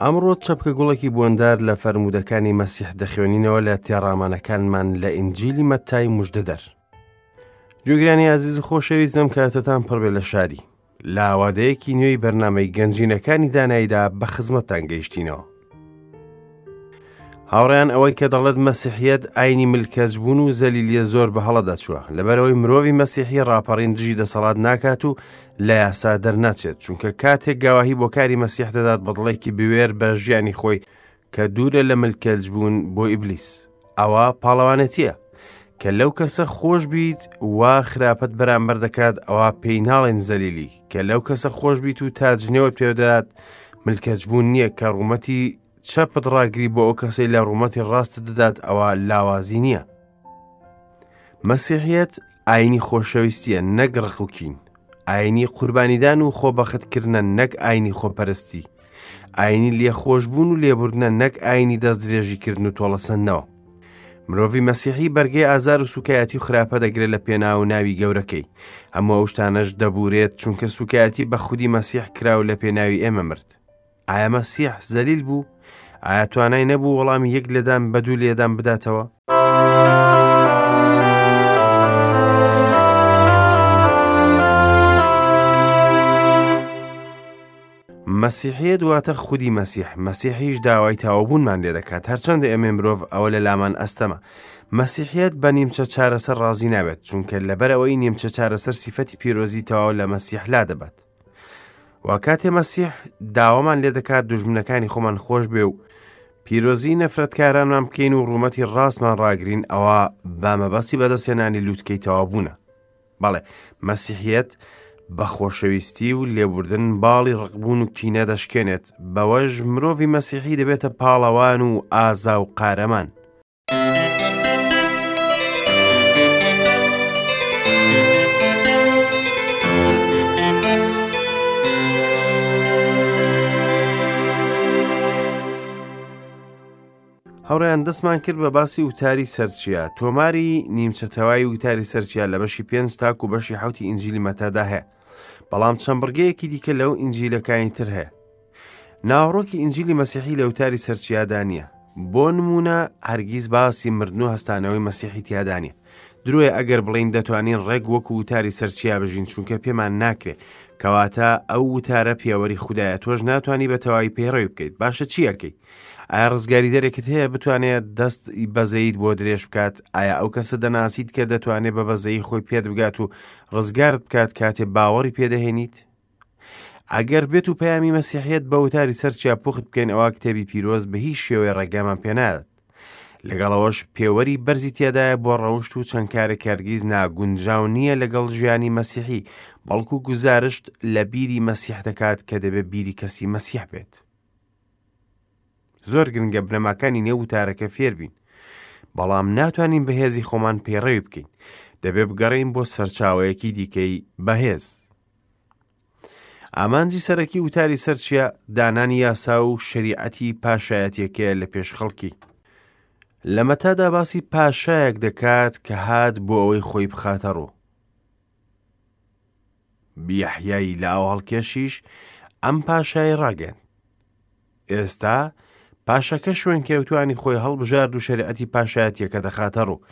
ئەمڕۆ چەپکە گوڵێکی بۆندار لە فەرموودەکانی مەسیح دەخوێنینەوە لە تێڕامانەکانمان لە ئینجیلی مەتای مژدەدەر. گوێگرانی ئازیز و خۆشەویستم کاتتان پڕبێ لە شادی. لە ئاوادەیەکی نوێی بەرنامەی گەنجینەکانی داناییدا بە خزمەتتان گەیشتینەوە. هاوڕێیان ئەوەی کە دەڵێت مەسیحیەت ئاینی ملکەچبوون و زەلیلیە زۆر بە هەڵە دەچووە لەبەرەوەی مرۆڤی مەسیحی ڕاپەڕین دژی دەسەڵات ناکات و لە یاسا دەرناچێت چونکە کاتێک گەواهی بۆ کاری مەسیح دەدات بە دڵێکی بوێر بە ژیانی خۆی کە دوورە لە ملکەچبوون بۆ ئیبلیس ئەوە پاڵەوانێتیە کە لەو کەسە خۆش بیت وا خراپەت بەرامبەر دەکات ئەوە پێی ناڵێن زەلیلی کە لەو کەسە خۆش بیت و تاجنێوە پێدات ملکەچبوون نییە کە ڕوومەتی چەپت ڕاگری بۆ ئەو کەسەی لە ڕوومەتی ڕاستت دەدات ئەوە لاوازی نییە. مەسیحیەت ئاینی خۆشەویستیە نەک ڕق و کین. ئاینی قوربانیدان و خۆبەختکردنە نەک ئاینی خۆپەرستی. ئاینی لێخۆشبوون و لێبوردنە نەک ئاینی دەستدرێژیکردن و تۆڵەسەندنەوە. مرۆڤی مەسیحی بەرگەی ئازار و سوکایەتی و خراپە دەگرێت لە پێناو ناوی گەورەکەی. هەموو ئەو شتانەش دەبورێت چونکە سوکایەتی بە خودی مەسیح کرا و لە پێناوی ئێمە مرد. ئایا مەسیح زەلیل بوو؟ ئایا توانای نەبوو وەڵامی یەک لێدان بە دوو لێدان بداتەوە؟ مەسیحیەت واتە خودی مەسیح، مەسیحیش داوای تەواوبوونمان لێ دەکات، هەرچەندە ئێمەی مرۆڤ ئەوە لە لامان ئەستەمە. مەسیحیەت بە نیمچە چارەسەر ڕازی نابێت، چونکە لەبەرئەوەی نیمچە چارەسەر سیفەتی پیرۆزی تەواو لە مەسیح لادەبات. وا کاتێ مەسیح داوامان لێ دەکات دوژمنەکانی خۆمان خۆش بێ و پیرۆزی نەفرەتکارانمان بکەین و ڕوومەتی ڕاستمان ڕاگرین ئەوە بە مەبەستی بەدەستهێنانی لووتکەی تەواوبوونە. بەڵێ مەسیحیەت بە خۆشەویستی و لێبوردن باڵی ڕقبوون و کینە دەشکێنێت بەوەش مرۆڤی مەسیحی دەبێتە پاڵەوان و ئازا و قارەمان. هاوڕێیان دەستمان کرد بە باسی وتاری سەرچیا تۆماری نیمچە تەوای وتاری سەرچیا لە بەشی پێنج تاکو و بەشی حوتی ئینجیلی مەتادا هەیە بەڵام چەند بڕگەیەکی دیکە لەو ئینجیلەکانی تر هەیە ناوەڕۆکی ئینجیلی مەسیحی لە وتاری سەرچیادا نییە. بۆ نموونە هەرگیز باسی مردن و هەستانەوەی مەسیحی تیادا نییە. درۆیە ئەگەر بڵێین دەتوانین ڕێک وەکو وتاری سەرچیا بژین چونکە پێمان ناکرێ. کەواتە ئەو وتارە پێوەری خودایە تۆش ناتوانی بە تەواوی پەیڕەوی بکەیت. باشە چی ئەکەی؟ ئایا ڕزگاریدەرێکت هەیە بتوانێت دەست بەزەیت بۆ درێژ بکات؟ ئایا ئەو کەسە دەناسیت کە دەتوانێت بە بەزەیی خۆی پێت بگات و ڕزگارت بکات کاتێ باوەڕی پێدەهێنیت؟ ئەگەر بێت و پەیامی مەسیحیەت بە وتاری سەر چیا پوخت بکەین ئەوا کتێبی پیرۆز بە هیچ شێوەیە ڕێگامان پێنادات لەگەڵەوەش پێوەری بەرزی تێدایە بۆ ڕەوشت و چەند کارێک هەرگیز ناگونجاو نییە لەگەڵ ژیانی مەسیحی بەڵکو گوزارشت لە بیری مەسیح دەکات کە دەبێت بیری کەسی مەسیح بێت زۆر گرنگە بنەماکانی نێو وتارەکە فێربین بەڵام ناتوانین بەهێزی خۆمان پەیڕەوی بکەین دەبێ بگەڕین بۆ سەرچاوەیەکی دیکەی بەهێز ئامانجی سەرەکی وتاری سەرچیا دانانی یاسا و شەریعەتی پاشایەتیەکەیە لە پێش خەڵکی. لە مەتادا باسی پاشایەک دەکات کە هات بۆ ئەوەی خۆی بخاتە ڕوو. یەحیای لە ئاو هەڵکێشیش ئەم پاشای ڕاگەیاند. ئێستا پاشەکە شوێنکەوتوانی خۆی هەڵبژارد و شەریعەتی پاشایەتیەکە دەخاتە ڕوو.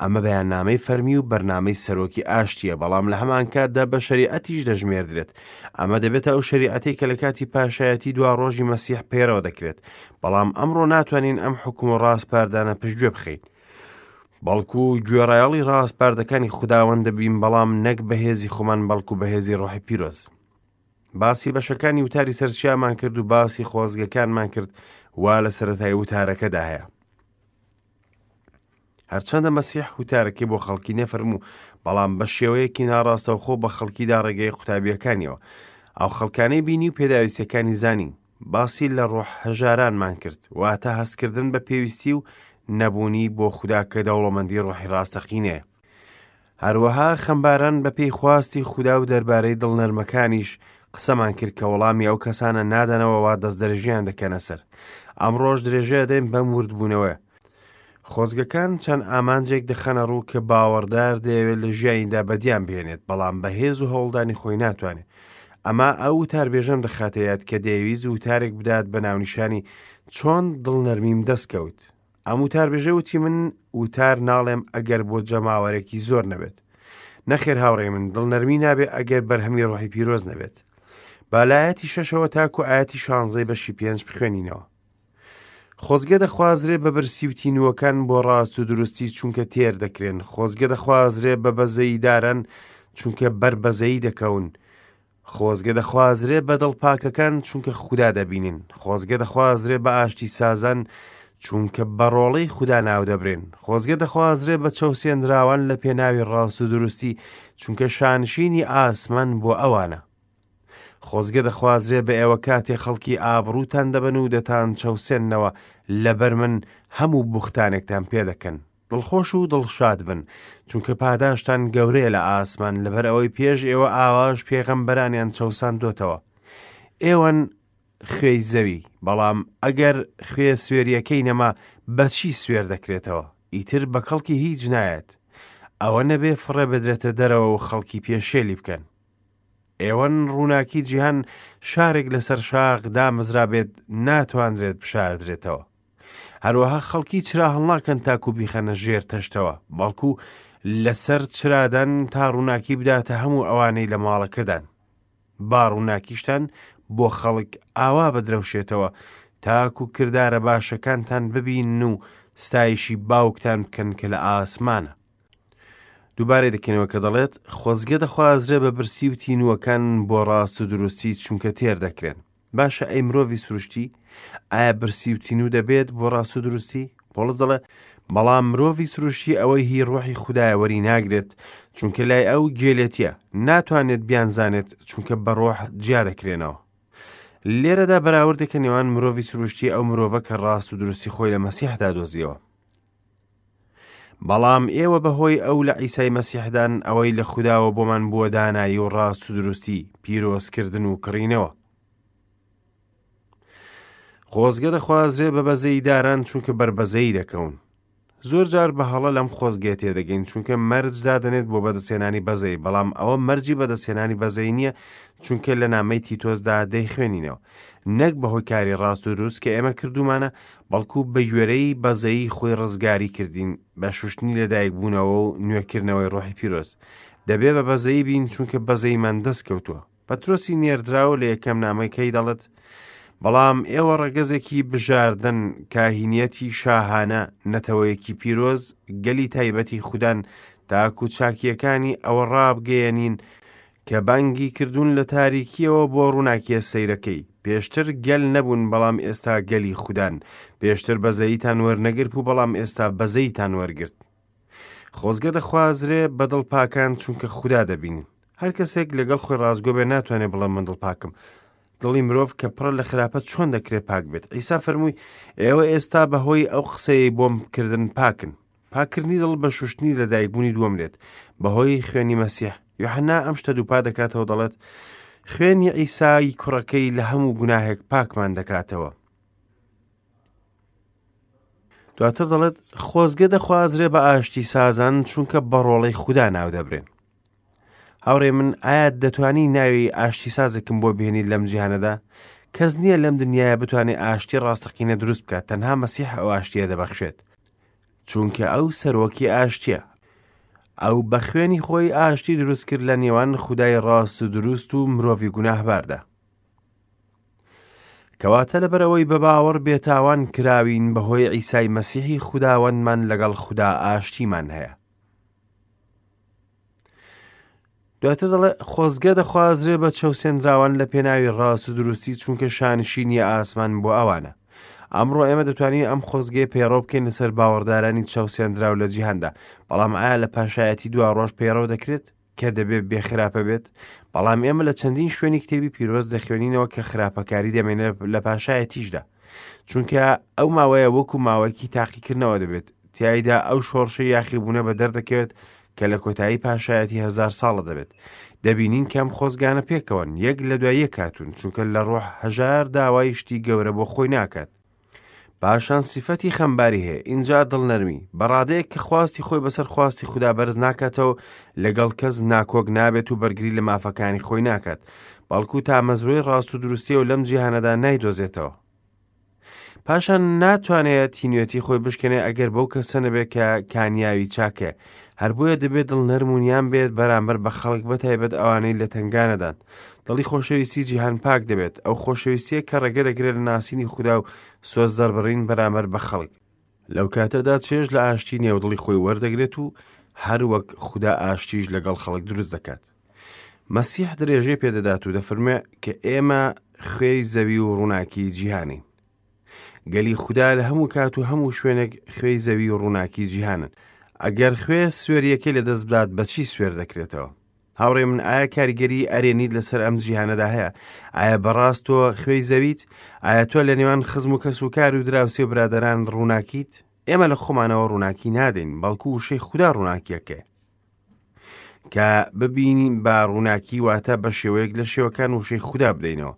ئەمە بەیاننامەی فەرمی و بەرنامەی سەرۆکی ئاشتیە، بەڵام لە هەمان کاتدا بە شەریعەتیش دەژمێردرێت. ئەمە دەبێتە ئەو شەریعەتەی کە لە کاتی پاشایەتی دوا ڕۆژی مەسیح پەیڕەو دەکرێت. بەڵام ئەمڕۆ ناتوانین ئەم حوکم و ڕاسپاردانە پشتگوێ بخەین. بەڵکو گوێڕایەڵی ڕاسپاردەکانی خوداوەند دەبین، بەڵام نەک بە هێزی خۆمان بەڵکو بە هێزی ڕۆحی پیرۆز. باسی بەشەکانی وتاری سەرچیامان کرد و باسی خۆزگەکانمان کرد وا لە سەرەتای وتارەکەدا هەیە. هەرچەندە مەسیح وتارەکەی بۆ خەڵکی نەفەرموو، بەڵام بە شێوەیەکی ناڕاستەوخۆ بە خەڵکیدا ڕێگەی قوتابیەکانیەوە. ئەو خەڵکانەی بینی و پێداویستیەکانی زانی. باسی لە ڕۆح هەژارانمان کرد، واتە هەستکردن بە پێویستی و نەبوونی بۆ خودا کە دەوڵەمەندی ڕۆحی ڕاستەقینەیە. هەروەها خەمباران بە پێی خواستی خودا و دەربارەی دڵنەرمەکانیش قسەمان کرد کە وەڵامی ئەو کەسانە نادەنەوە وا دەستدرێژیان دەکەنە سەر. ئەمڕۆش درێژە دەین بەم وردبوونەوەیە. خۆزگەکان چەند ئامانجێک دەخەنە ڕوو کە باوەڕدار دەیەوێت لە ژیانیدا بەدیان بهێنێت، بەڵام بە هێز و هەوڵدانی خۆی ناتوانێت. ئەمە ئەو وتاربێژەم دەخاتە یاد کە دەیەویست وتارێک بدات بە ناونیشانی چۆن دڵنەرمیم دەست کەوت. ئەم وتاربێژە وتی من وتار ناڵێم ئەگەر بۆ جەماوەرێکی زۆر نەبێت. نەخێر هاوڕێی من دڵنەرمی نابێ ئەگەر بەرهەمی ڕۆحی پیرۆز نەبێت. با لە ئایەتی شەشەوە تاکو ئایەتی شانزەی بەشی پێنج بخوێنینەوە. خۆزگە دەخوازرێ بە برسی و تینووەکان بۆ ڕاست و دروستی چونکە تێر دەکرێن خۆزگە دەخوازرێ بە بەزەییداران چونکە بەر بەزەیی دەکەون خۆزگە دەخوازرێ بە دڵپاکەکان چونکە خودا دەبینن خۆزگە دەخوازرێ بە ئاشتی سازان چونکە بە ڕۆڵەی خودا ناودەبرێن خۆزگە دەخوازرێ بە چەوسێنراوان لە پێناوی ڕاست و دروستی چونکە شانشینی ئاسمان بۆ ئەوانە خۆزگە دەخوازرێ بە ئێوە کاتێ خەڵکی ئابڕووتان دەبەن و دەتان چەوسێننەوە لەبەر من هەموو بوختانێکتان پێ دەکەن. دڵخۆش و دڵشاد بن، چونکە پاداشتان گەورەیە لە ئاسمان، لەبەر ئەوەی پێش ئێوە ئاواش پێغەمبەرانیان چەوساندۆتەوە. ئێوەن خوێی زەوی، بەڵام ئەگەر خوێ سوێریەکەی نەما، بە چی سوێر دەکرێتەوە؟ ئیتر بە کەڵکی هیچ نایەت. ئەوە نەبێ فڕێ بدرێتە دەرەوە و خەڵکی پێشێلی بکەن. ئێوەن ڕووناکی جیهان شارێک لەسەر شاخ دامەزرابێت ناتوانرێت بشاردرێتەوە. هەروەها خەڵکی چرا هەڵناکەن تاکو بیخەنە ژێر تەشتەوە، بەڵکو لەسەر چرادان تا ڕووناکی بداتە هەموو ئەوانەی لە ماڵەکەدان. با ڕووناکیشتان بۆ خەڵک ئاوا بدرەوشێتەوە تاکو کردارە باشەکانتان ببینن و ستایشی باوکتان بکەن کە لە ئاسمانە. دووبارەی دەکەینەوە کە دەڵێت خۆزگە دەخوازرێ بە برسی و تینووەکان بۆ ڕاست و دروستی چونکە تێر دەکرێن باشە ئەی مرۆڤی سروشتی ئایا برسی و تینوو دەبێت بۆ ڕاست و دروستی پۆڵس دەڵێ بەڵام مرۆڤی سروشتی ئەوەی هی ڕۆحی خودایە وەری ناگرێت چونکە لای ئەو گێلێتیە ناتوانێت بیانزانێت چونکە بە ڕۆح جیا دەکرێنەوە لێرەدا بەراوردێکە نێوان مرۆڤی سروشتی ئەو مرۆڤە کە ڕاست و دروستی خۆی لە مەسیحدا دۆزیەوە بەڵام ئێوە بەهۆی ئەو لە عیسای مەسیحدان ئەوەی لە خوداوە بۆمان بووە دانایی و ڕاست و دروستی، پیرۆزکردن و کڕینەوە. خۆزگە دەخوازرێ بە بەزەییداران چونکە بەر بەزەیی دەکەون. زۆر جار بە هەڵە لەم خۆزگەیە تێدەگەین چونکە مەرج دادەنێت بۆ بەدەستهێنانی بەزەیی بەڵام ئەوە مەرجی بەدەستهێنانی بەزەیی نییە چونکە لە نامەی تیتۆسدا دەیخوێنینەوە نەک بەهۆی کاری ڕاست و دروست کە ئێمە کردوومانە بەڵکو بەگوێرەی بەزەیی خۆی ڕزگاری کردین بە شوشتنی لەدایکبوونەوە و نوێکردنەوەی ڕۆحی پیرۆز. دەبێ بە بەزەیی بین چونکە بەزەییمان دەست کەوتووە. پەترۆسی نێردراو لە یەکەم نامەکەی دەڵێت، بەڵام ئێوە ڕەگەزێکی بژاردەن، کاهینیەتی شاهانە، نەتەوەیەکی پیرۆز، گەلی تایبەتی خودان، تاکو چاکییەکانی ئەوە ڕابگەیەنین کە بانگی کردوون لە تاریکییەوە بۆ ڕووناکییە سەیرەکەی. پێشتر گەل نەبوون بەڵام ئێستا گەلی خودان. پێشتر بەزەییتان وەرنەگرت و بەڵام ئێستا بەزەییتان وەرگرت. خۆزگە دەخوازرێ بە دڵپاکان چونکە خودا دەبینن. هەر کەسێک لەگەڵ خۆی ڕاستگۆ بێ ناتوانێ بڵێ من دڵپاکم. دڵی مرۆڤ کە پڕە لە خراپە چۆن دەکرێ پاک بێت؟ عیسا فەرمووی ئێوە ئێستا بەهۆی ئەو قسەیەی بۆم کردن پاکن. پاککردنی دڵ بە شوشتنی لەدایکبوونی دووەم دێت بەهۆی خوێنی مەسیح. یۆحەنا ئەم شتە دووپات دەکاتەوە دەڵێت خوێنی عیسای کوڕەکەی لە هەموو گوناهێک پاکمان دەکاتەوە. دواتر دەڵێت خۆزگە دەخوازرێ بە ئاشتی سازان چونکە بە ڕۆڵەی خودا ناودەبرێن. هاوڕێ من ئایا دەتوانی ناوی ئاشتی سازێکم بۆ بهێنیت لەم جیهانەدا؟ کەس نییە لەم دنیاە بتوانێت ئاشتی ڕاستەقینە دروست بکات تەنها مەسیح ئەو ئاشتیە دەبەخشێت. چونکە ئەو سەرۆکی ئاشتیە. ئەو بە خوێنی خۆی ئاشتی دروست کرد لە نێوان خودای ڕاست و دروست و مرۆڤی گوناهباردا. کەواتە لەبەرئەوەی بە باوەڕ بێتاوان کراوین بەهۆی عیسای مەسیحی خوداوەندمان لەگەڵ خودا ئاشتیمان هەیە. دواتر دەڵێ خۆزگە دەخوازرێ بە چەوسێنراوان لە پێناوی ڕاست و دروستی چونکە شانشینی ئاسمان بۆ ئەوانە. ئەمڕۆ ئێمە دەتوانین ئەم خۆزگەیە پەیڕەو بکەین لەسەر باوەڕدارانی چەوسێنراو لە جیهاندا، بەڵام ئایا لە پاشایەتی دوا ڕۆژ پەیڕەو دەکرێت؟ کە دەبێ بێ خراپە بێت؟ بەڵام ئێمە لە چەندین شوێنی کتێبی پیرۆز دەخوێنینەوە کە خراپەکاری دەمێنێت لە پاشایەتیشدا. چونکە ئەو ماوەیە وەکو ماوەیەکی تاقیکردنەوە دەبێت، تیایدا ئەو شۆڕشە یاخیبوونە بە دەردەکەوێت کە لە کۆتایی پاشایەتی هەزار ساڵە دەبێت. دەبینین کە ئەم خۆزگانە پێکەوەن، یەک لە دوای یەک هاتوون، چونکە لە ڕۆح هەژار داوای شتی گەورە بۆ خۆی ناکات. پاشان سیفەتی خەمباری هەیە، ئینجا دڵنەرمی، بە ڕادەیەک کە خواستی خۆی بەسەر خواستی خودا بەرز ناکاتەوە و لەگەڵ کەس ناکۆک نابێت و بەرگری لە مافەکانی خۆی ناکات، بەڵکو تامەزرۆی ڕاست و دروستیە و لەم جیهانەدا نایدۆزێتەوە. پاشان ناتوانێت تینوێتی خۆی بشکێنێ ئەگەر بەو کەسە نەبێت کە کانیاوی چاکەیە هەر بۆیە دەبێت دڵ نەرم و نیان بێت بەرامبەر بە خەڵک بەتایبەت ئەوانەی لە تەنگانەدان دڵی خۆشەویستی جیهان پاک دەبێت ئەو خۆشەویستیە کە ڕێگە دەگرێت لە ناسینی خودا و سۆز دەربڕین بەرامبەر بە خەڵک لەو کاتەدا چێژ لە ئاشتی نێو دڵی خۆی وەردەگرێت و هەر وەک خودا ئاشتیش لەگەڵ خەڵک دروست دەکات. مەسیح درێژەی پێدەدات و دەفەرموێ کە ئێمە خوێی زەوی و ڕووناکی جیهانین. گەلی خودا لە هەموو کات و هەموو شوێنێک خوێی زەوی و ڕووناکی جیهانن. ئەگەر خوێ سوێریەکەی لەدەست بدات بەچی سوێر دەکرێتەوە؟ هاوڕێ من ئایا کاریگەری ئەرێنیت لەسەر ئەم جیهانەدا هەیە؟ ئایا بەڕاست تۆ خوێی زەویت؟ ئایا تۆ لە نێوان خزم و کەس و کار و دراوسێ و برادەران ڕووناکیت؟ ئێمە لە خۆمانەوە ڕووناکی نادەین، بەڵکو وشەی خودا ڕووناکیەکەیە. کە ببینین بە ڕووناکی واتە بە شێوەیەک لە شێوەکان وشەی خودا بدەینەوە.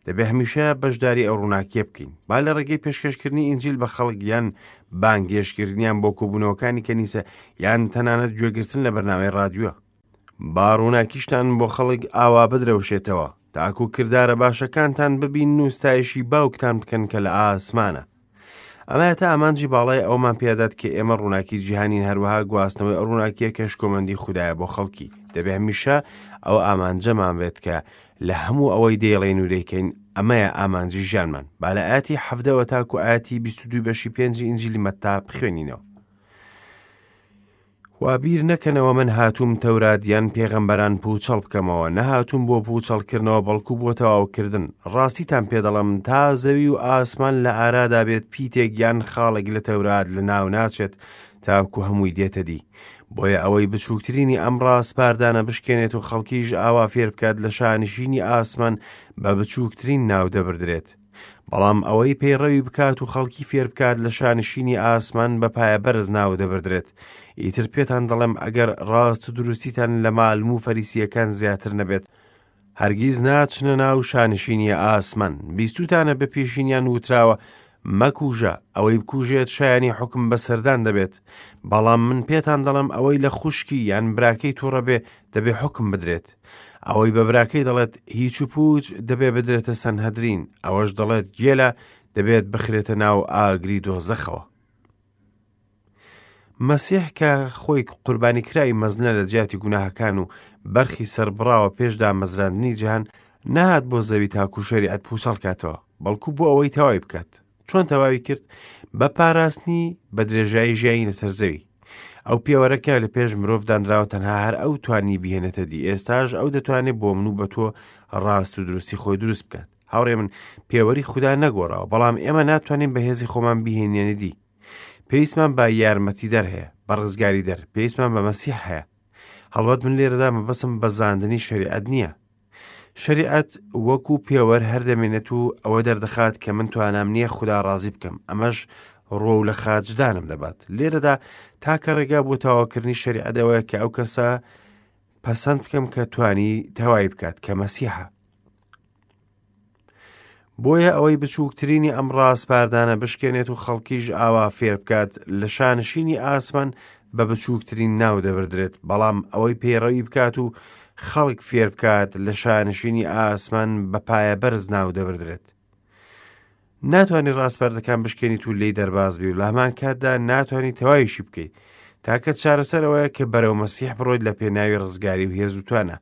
دەبێ هەمیشە بەشداری ئەو ڕووناکیە بکەین با لە ڕێگەی پێشکەشکردنی ئینجیل بە خەڵک یان بانگێشکردنیان بۆ کۆبوونەوەکانی کەنیسە یان تەنانەت گوێگرتن لە بەرنامەی ڕادیۆ با ڕووناکیشتان بۆ خەڵک ئاوا بدرەوشێتەوە تاکو کردارە باشەکانتان ببین و ستایشی باوکتان بکەن کە لە ئاسمانە ئەمە تا ئامانجی باڵای ئەومان پێدات کە ئێمە ڕووناکی جیهانین هەروەها گواستنەوەی ئەو ڕووناکیە کە شکۆمەندی خودایە بۆ خەڵکی دەبێ هەمیشە ئەو ئامانجەمان بێت کە لە هەموو ئەوەی دەیڵێین و دەیکەین ئەمەیە ئامانجی ژیانمان با لە ئاەتی حەفدەوە تاکو ئاەتی 22 بەشی پێنجی ئینجیلی مەتا بخوێنینەوە وا بیر نەکەنەوە من هاتووم تەورات یان پێغەمبەران پووچەڵ بکەمەوە، نەهاتووم بۆ پووچەڵکردنەوە بەڵکو بۆ تەواوکردن. ڕاستیتان پێ دەڵێم، تا زەوی و ئاسمان لە ئارادا بێت پیتێک یان خاڵێک لە تەورات لەناو ناچێت تاکو هەمووی دێتە دی. بۆیە ئەوەی بچووکترینی ئەم ڕاسپاردانە بشکێنێت و خەڵکیش ئاوا فێر بکات لە شانشینی ئاسمان بە بچووکترین ناو دەبردرێت. بەڵام ئەوەی پەیڕەوی بکات و خەڵکی فێر بکات لە شانشینی ئاسمان بە پایە بەرز ناو دەبردرێت. ئیتر پێتان دەڵێم ئەگەر ڕاست و دروستیتان لە مالم و فەریسییەکان زیاتر نەبێت، هەرگیز ناچنە ناو شانشینی ئاسمان. بیستووتانە بە پێشینیان وتراوە، مەکوژە، ئەوەی بکوژێت شایانی حوکم بەسەردان دەبێت. بەڵام من پێتان دەڵێم ئەوەی لە خوشکی یان براکەی تووڕە بێ، دەبێ حوکم بدرێت. ئەوەی بە براکەی دەڵێت هیچ و پوچ دەبێ بدرێتە سەنهەدرین، ئەوەش دەڵێت گێلە دەبێت بخرێتە ناو ئاگری دۆزەخەوە. مەسیح کە خۆی قوربانی کراوی مەزنە لە جیاتی گوناهەکان و بەرخی سەربڕاوە پێش دامەزراندنی جیهان، نەهات بۆ زەوی تاکو شەریعەت پوچەڵ کاتەوە، بەڵکو بۆ ئەوەی تەواوی بکات. چۆن تەواوی کرد؟ بە پاراستنی بە درێژایی ژیانی لەسەر زەوی. ئەو پێوەرە کە لە پێش مرۆڤ دانراوە تەنها هەر ئەو توانی بهێنێتە دی، ئێستاش ئەو دەتوانێت بۆ من و بە تۆ ڕاست و دروستی خۆی دروست بکات. هاوڕێ من پێوەری خودا نەگۆڕاوە، بەڵام ئێمە ناتوانین بە هێزی خۆمان بیهێنینە دی. پێویستمان بە یارمەتیدەر هەیە، بە ڕزگاریدەر، پێویستمان بە مەسیح هەیە. هەڵبەت من لێرەدا مەبەستم بەزاندنی شەریعەت نییە. شەریعەت وەکو پێوەر هەر دەمێنێت و ئەوە دەردەخات کە من توانام نییە خودا ڕازی بکەم، ئەمەش ڕووەو لە خاچدانم دەبات. لێرەدا تاکە ڕێگا بۆ تەواوکردنی شەریعەت ئەوەیە کە ئەو کەسە پەسەند بکەم کە توانی تەوای بکات کە مەسیحە. بۆیە ئەوەی بچووکترینی ئەم ڕاسپاردانە بشکێنێت و خەڵکیش ئاوا فێر بکات لە شانشینی ئاسمان بە بچووکترین ناو دەبردرێت، بەڵام ئەوەی پەیڕەوی بکات و خەڵک فێر بکات لە شانشینی ئاسمان بە پایە بەرز ناو دەبردرێت. ناتوانانی ڕاسپاردەکان بشکێنیت و لێی دەرباز بی و لە هەمان کاتدا ناتوانانی تەواویشی بکەیت. تاکە چارەسەر ئەوەیە کە بەرەو مەسیح بڕۆیت لە پێناوی ڕزگاری و هێز و توانا.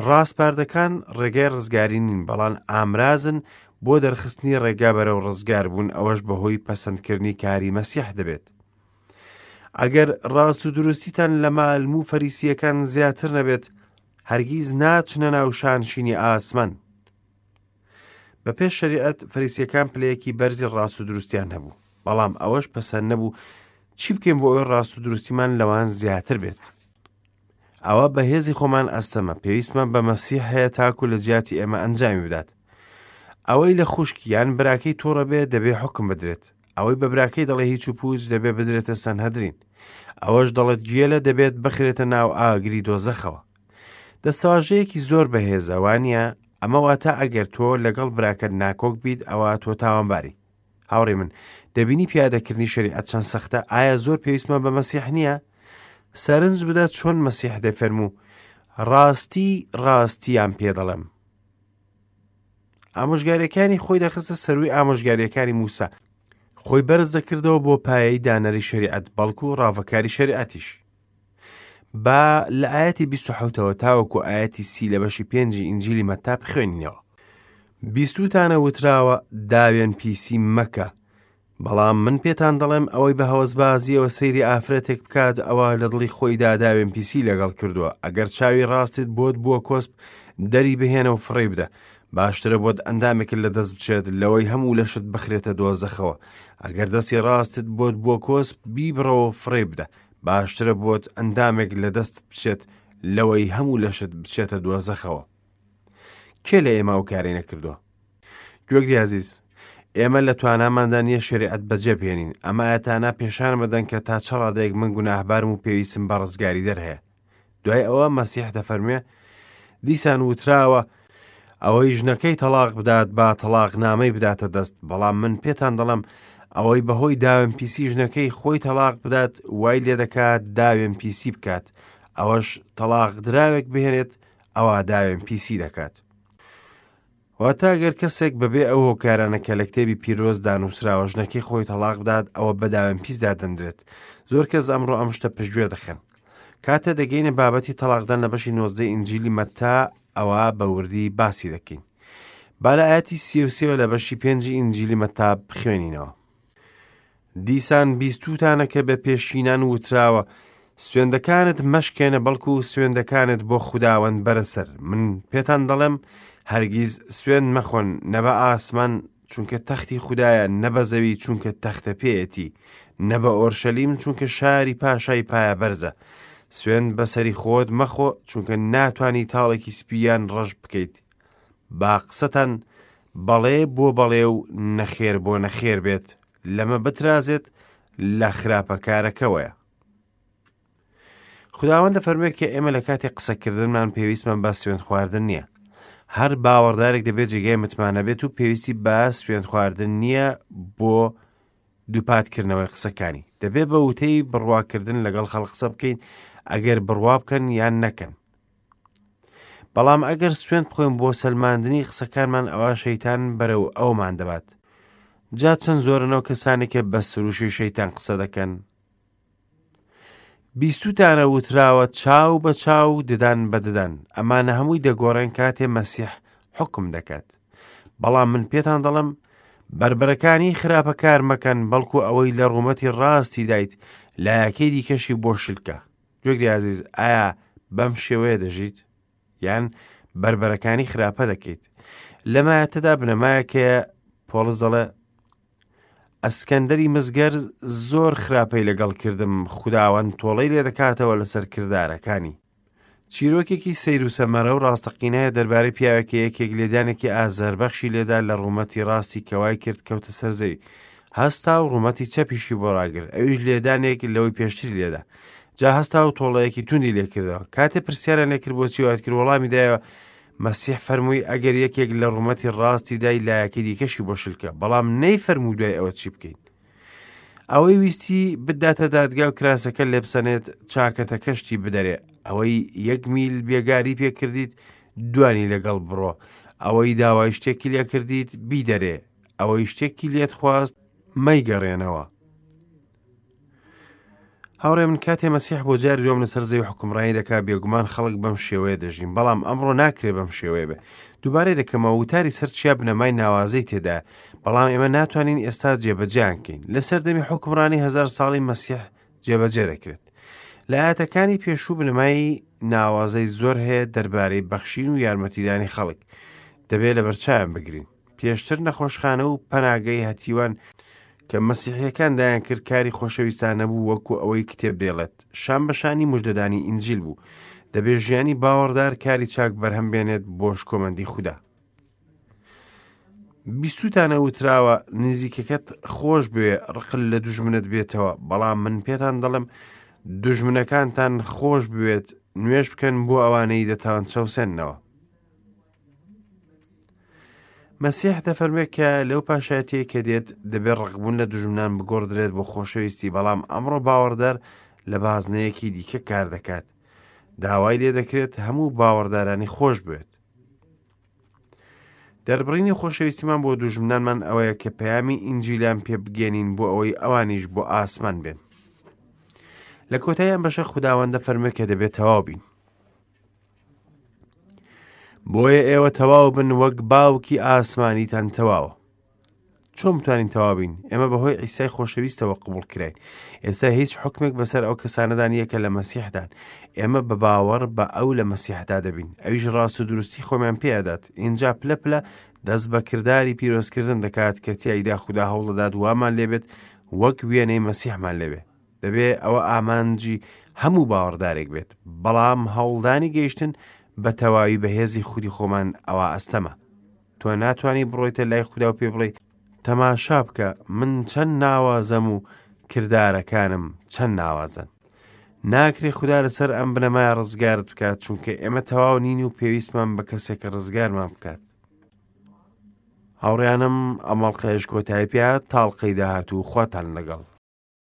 ڕاسپاردەکان ڕێگای ڕزگاری نین، بەڵام ئامرازن بۆ دەرخستنی ڕێگا بەرەو ڕزگاربوون، ئەوەش بەهۆی پەسەندکردنی کاری مەسیح دەبێت. ئەگەر ڕاست و دروستیتان لە مالم و فەریسییەکان زیاتر نەبێت، هەرگیز ناچنە ناو شانشینی ئاسمان. بە پێش شەریعەت فەریسیەکان پلەیەکی بەرزی ڕاست و دروستیان هەبوو، بەڵام ئەوەش پەسەند نەبوو چی بکەین بۆ ئەوەی ڕاست و دروستیمان لەوان زیاتر بێت. ئەوە بە هێزی خۆمان ئەستەمە، پێویستمان بە مەسیح هەیە تاکو لە جیاتی ئێمە ئەنجامی بدات. ئەوەی لە خوشک یان براکەی تووڕە بێ دەبێ حوکم بدرێت. ئەوەی بە براکەی دەڵێ هیچ و پووچ دەبێ بدرێتە سەنهەدرین. ئەوەش دەڵێت گێلە دەبێت بخرێتە ناو ئاگری دۆزەخەوە. دەستەواژەیەکی زۆر بەهێزە وانە؟ ئەمە واتە ئەگەر تۆ لەگەڵ براکەت ناکۆک بیت ئەوە تۆ تاوانباری. هاوڕێی من، دەبینی پیادەکردنی شەریعەت چەند سەختە؟ ئایا زۆر پێویستمان بە مەسیح نییە؟ سەرنج بدە چۆن مەسیح دەفەرموو، ڕاستی ڕاستیان پێ دەڵێم. ئامۆژگاریەکانی خۆی دەخستە سەروی ئامۆژگاریەکانی موسا. خۆی بەرز دەکردەوە بۆ پایەی دانەری شەریعەت، بەڵکو ڕاڤەکاری شەریعەتیش. با لە ئایەتی 27ەوە تاوەکو ئایەتی سی لە بەشی پێنجی ئینجیلی مەتا بخوێنینەوە. بیستووتانە وتراوە داوێن پیسی مەکە، بەڵام من پێتان دەڵێم ئەوەی بە هەوەسبازیەوە سەیری ئافرەتێک بکات ئەوە لە دڵی خۆیدا داوێن پیسی لەگەڵ کردووە. ئەگەر چاوی ڕاستت بۆت بووە کۆسپ دەری بهێنە و فڕێی بدە، باشترە بۆت ئەندامێکت لە دەست بچێت لەوەی هەموو لەشت بخرێتە دۆزەخەوە. ئەگەر دەستی ڕاستت بۆت بووە کۆسپ بیبڕەوە و فڕێی بدە، باشترە بۆت ئەندامێک لە دەستت بچێت لەوەی هەموو لەشت بچێتە دۆزەخەوە. کێ لە ئێمە ئەو کارەی نەکردووە؟ گوێگری ئازیز، ئێمە لە تواناماندا نییە شەریعەت بەجێ بهێنین. ئەم ئایەتانە پێشانم دەدەن کە تا چ ڕادەیەک من گوناهبارم و پێویستم بە ڕزگاریدەر هەیە. دوای ئەوە مەسیح دەفەرموێ، دیسان وتراوە، ئەوەی ژنەکەی تەڵاق بدات با تەڵاق نامەی بداتە دەست، بەڵام من پێتان دەڵێم ئەوەی بەهۆی داوێن پیسی ژنەکەی خۆی تەڵاق بدات وای لێدەکات داوێن پیسی بکات، ئەوەش تەڵاق دراوێک بهێنێت ئەوا داوێن پیسی دەکات. واتە گەر کەسێک بەبێ ئەو هۆکارانە کە لە کتێبی پیرۆزدا نووسراوە ژنەکەی خۆی تەڵاق بدات ئەوە بە داوێن پیس دادەنرێت. زۆر کەس ئەمڕۆ ئەم شتە پشتگوێ دەخەن. کاتێ دەگەینە بابەتی تەڵاقدان لە بەشی نۆزدەی ئینجیلی مەتا ئەوە بە وردی باسی دەکەین. با لە ئاەتی 33 لە بەشی پێنجی ئینجیلی مەتا بخوێنینەوە. دیسان بیستووتانە کە بە پێشینان وتراوە، سوێندەکانت مەشکێنە بەڵکو سوێندەکانت بۆ خوداوەند بەرە سەر. من پێتان دەڵێم هەرگیز سوێند مەخۆن، نە بە ئاسمان چونکە تەختی خودایە، نە بە زەوی چونکە تەختە پێیەتی، نە بە ئۆرشەلیم چونکە شاری پاشای پایە بەرزە. سوێند بەسەری خۆت مەخۆ چونکە ناتوانی تاڵێکی سپی یان ڕەش بکەیت. با قسەتان بەڵێ بۆ بەڵێ و نەخێر بۆ نەخێر بێت، لەمە بترازێت لە خراپەکارەکەوەیە. خداوەند دەفەرموێت کە ئێمە لە کاتی قسەکردنمان پێویستمان بە سوێند خواردن نییە. هەر باوەڕدارێک دەبێت جێگای متمانە بێت و پێویستی بە سوێند خواردن نییە بۆ دووپاتکردنەوەی قسەکانی. دەبێت بە وتەی بڕواکردن لەگەڵ خەڵک قسە بکەین ئەگەر بڕوا بکەن یان نەکەن. بەڵام ئەگەر سوێند بخۆین بۆ سەلماندنی قسەکانمان ئەوا شەیتان بەرەو ئەومان دەبات. جا چەند زۆرن ئەو کەسانێک کە بە سروشی شەیتان قسە دەکەن. بیستوتانە وتراوە چاو بە چاو ددان بە ددان. ئەمانە هەمووی دەگۆڕێن کاتێ مەسیح حکم دەکات. بەڵام من پێتان دەڵێم بەربەرەکانی خراپەکار مەکەن بەڵکو ئەوەی لە ڕوومەتی ڕاستی دایت لایەکەی دیکەشی بۆ شلکە. گوێگری ئازیز ئایا بەم شێوەیە دەژیت یان بەربەرەکانی خراپە دەکەیت لەمایەتەدا بنەمایەکەیە پۆڵس دەڵێ ئەسکەندەری مزگەر زۆر خراپەی لەگەڵ کردم خوداوەند تۆڵەی لێ دەکاتەوە لەسەر کردارەکانی چیرۆکێکی سەیر و سەمەرە و ڕاستەقینەیە دەربارەی پیاوێک کە یەکێک لێدانێکی ئازاربەخشی لێدا لە ڕوومەتی ڕاستی کە وای کرد کەوتە سەر زەوی. هەستا و ڕوومەتی چەپیشی بۆ ڕاگرت، ئەویش لێدانێک لەوەی پێشتری لێدا. جا هەستا و تۆڵەیەکی توندی لێکردەوە. کاتێ پرسیاریان لێکرد بۆچی وات کرد، وەڵامی دایەوە، مەسیح فەرمووی ئەگەر یەکێک لە ڕوومەتی ڕاستی دای لایەکەی دیکەشی بۆ شلکە، بەڵام نەیفەرموو دوای ئەوە چی بکەین. ئەوەی ویستی بداتە دادگا و کراسەکە لێبسەنێت چاکەتەکەشتی بدەرێ ئەوەی یەک میل بێگاری پێکردیت دوانی لەگەڵ بڕۆ ئەوەی داوای شتێکی لێکردیت بیدەرێ ئەوەی شتێکی لێت خواست مەیگەڕێنەوە هاوڕێ من کاتێ مەسیح بۆ جاری دووەم لەسەر زەوی حکومڕانی دەکا بێگومان خەڵک بەم شێوەیە دەژین بەڵام ئەمڕۆ ناکرێ بەم شێوەیە بێ دووبارەی دەکەمەوە وتاری سەر چیا بنەمای ناوازەی تێدا بەڵام ئێمە ناتوانین ئێستا جێبەجێیان کەین لە سەردەمی حکومڕانی هەزار ساڵی مەسیح جێبەجێ دەکرێت لە ئاەتەکانی پێشوو بنەمای ناوازەی زۆر هەیە دەربارەی بەخشین و یارمەتیدانی خەڵک دەبێت لەبەرچاویان بگرین پێشتر نەخۆشخانە و پەناگەی هەتیوان کە مەسیحیەکان دایان کرد کاری خۆشەویستانە بوو وەکو ئەوەی کتێب دەیڵێت شان بە شانی مژدەدانی ئینجیل بوو دەبێت ژیانی باوەڕدار کاری چاک بەرهەم بێنێت بۆ شکۆمەندی خودا بیستوتانە وتراوە نزیکەکەت خۆش بوێ ڕقل لە دوژمنت بێتەوە بەڵام من پێتان دەڵێم دوژمنەکانتان خۆش بوێت نوێژ بکەن بۆ ئەوانەی دەتان چەوسێننەوە. مەسیح دەفەرموێ کە لەو پاشایەتیەی کە دێت دەبێت ڕقبوون لە دوژمنان بگۆڕدرێت بۆ خۆشەویستی بەڵام ئەمڕۆ باوەڕدار لە بازنەیەکی دیکە کار دەکات داوای لێ دەکرێت هەموو باوەڕدارانی خۆش بوێت دەربڕینی خۆشەویستیمان بۆ دوژمنانمان ئەوەیە کە پەیامی ئینجیلیان پێ بگەێنین بۆ ئەوەی ئەوانیش بۆ ئاسمان بێن لە کۆتایی ئەم بەشە خوداوەندە فەرموێ کە دەبێت تەواو بین بۆیە ئێوە تەواو بن وەک باوکی ئاسمانیتان تەواوە چۆن بتوانین تەواو بین ئێمە بەهۆی ئیسای خۆشەویستەوە قبول کراین ئێستا هیچ حکمێک بەسەر ئەو کەسانەدا نییە کە لە مەسیحدان ئێمە بە باوەڕ بە ئەو لە مەسیحدا دەبین ئەویش ڕاست و دروستی خۆمان پێدات اینجا پلە پلە دەست بە کرداری پیرۆزکردن دەکات کە تیایدا خودا هەوڵدەدات وامان لێبێت وەک وێنەی مەسیحمان لێبێ دەبێ ئەوە ئامانجی هەموو باوەڕدارێک بێت، بەڵام هەوڵدانی گەیشتن بە تەواوی بەهێزی خودی خۆمان ئەوە ئەستەمە. تۆ ناتوانی بڕۆیتە لای خودا و پێ بڵێی تەماشا بکە من چەند ناوازەم و کردارەکانم چەند ناوازەن. ناکرێ خودا لەسەر ئەم بنەمایە ڕزگارت بکات چونکە ئێمە تەواو نین و پێویستمان بە کەسێکە ڕزگارمان بکات. هاوڕیانم ئەمەڵقەیەش کۆتایی پێ تاڵقەی داهاتوو خواتان لەگەڵ.